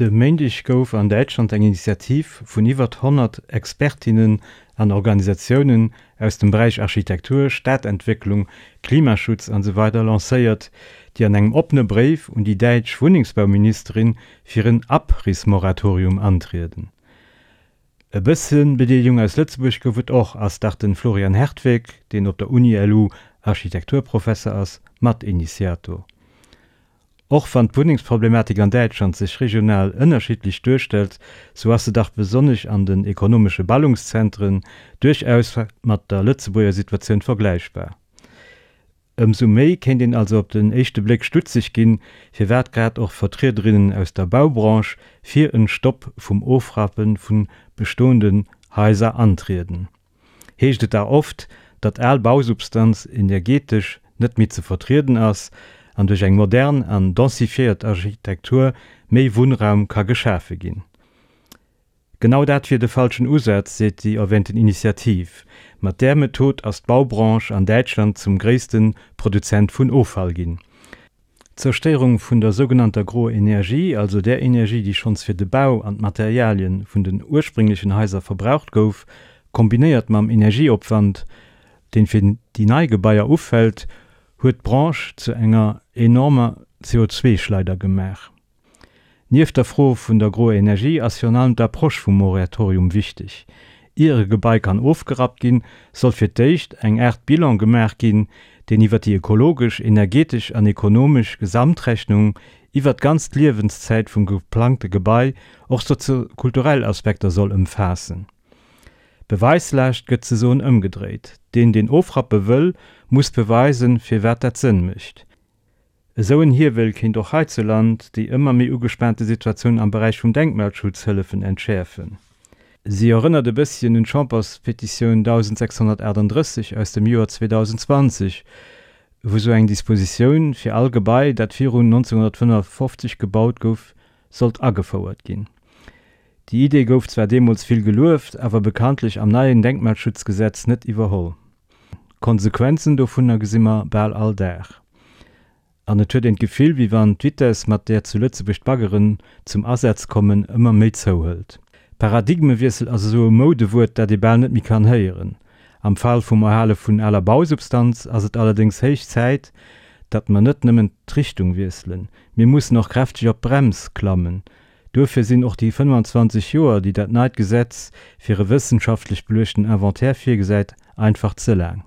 De Méindeg gouf an Däitschland eng Initiativ vun iwwert 100 Expertinnen an Organisatiounen aus dem Beräich Architektur, Stadentwécklung, Klimaschutz an esou weider lancéiert, déi an engem oppene Bréif un déi däitsch Wunnengsbauministerin fir en Abrissmoratorium antrieden. E bësse Bedeelegung aus Lëtzebuerg gouf et och, ass dach den Florian Hertweck, deen op der Uni-LU Architekturprofesser ass, Matinitiator. Och wann d'Wunnengsproblematik an Däitschland sech regional ënnerschiddlech duerstellt, sou ass se dach besonnesch an den ekonomesche Ballungszentren duerchaus mat der Lëtzebuerger Situatioun vergläichbar. Ëmsou méi kéint een also op den éischte Bléck stutzeg ginn, firwat grad och Vertriederinnen aus der Baubranche fir en Stopp vum Ofrappe vu bestoenden Haiser antrieden. Heescht et da oft, datt al Bausubstanz energetesch net méi ze vertrieden ass an duerch eng modern an densifiéiert Architektur méi Wunnraum ka geschafe ginn. Genau dat wier de falschen Usaz, seet déi erwähnten Initiativ. Mat där Method ass d'Baubranche an Däitschland zum gréisste Produzent vun Offall ginn. D'Zerstéierung vun der sougenannter groer Energie, also där Energie, déi schonns fir de Bau an d'Materialien vun den ursprénglechen Haiser verbraucht gouf, kombinéiert mam Energieopwand, deen fir déi nei Gebaier ufält, huet d'Branche zu enger enormer CO2-Schleider gemaach. Nieft der Fro vun der groer Energie ass virun allem d'Approche vum Moratorium wichteg. Ier e Gebai kann ofgerappt ginn, soll fir d'éischt eng Aart Bilan gemaach ginn, deen iwwer déi ökologesch, energetesch an ekonomesch Gesamtrechnung iwwer d'ganz Liewenszäit vum geplangte Gebai och soziokulturell Aspekter soll ëmfaassen. D'Beweislaascht gëtt zesoen ëmgedréit, Deen, deen ofrappe wëll, muss beweisen, firwat dat Sënn mécht. Esou en Hiewel kéint och heizuland déi ëmmer méi ugespaante Situatioun am Beräich vum Denkmalschutz hëllefen entschäerfen. Si erënnert e bësschen un d'Chamberspetitioun 1638 aus dem Joer 2020, wou sou eng Dispositioun fir all Gebai, dat virun 1955 gebaut gouf, sollt agefouert ginn. Déi Idee gouf zwar deemools vill gelueft, awer bekanntlech am neien Denkmalschutzgesetz net iwwerholl. D'Konsequenzen dovunner gesi mer bal all Dag. An et huet een d'Gefill, wéi wann d'Vitess, mat där zu Lëtzebuerg d'Baggeren zum Asaz kommen, ëmmer méi zouhëlt. Paradigmewiessel ass esou e Moudewuert, dat ee bal net méi kann héieren. Am Fall vum Erhale vun aler Bausubstanz ass et allerdéngs héich Zäit, datt mer net nëmmen d'Richtung wiesselen, mir mussen och kräfteg op d'Brems klammen. Duerfir sinn och déi 25 Joer, déi dat neit Gesetz fir e wëssenschaftlech beluechten Inventaire virgesäit, einfach ze laang.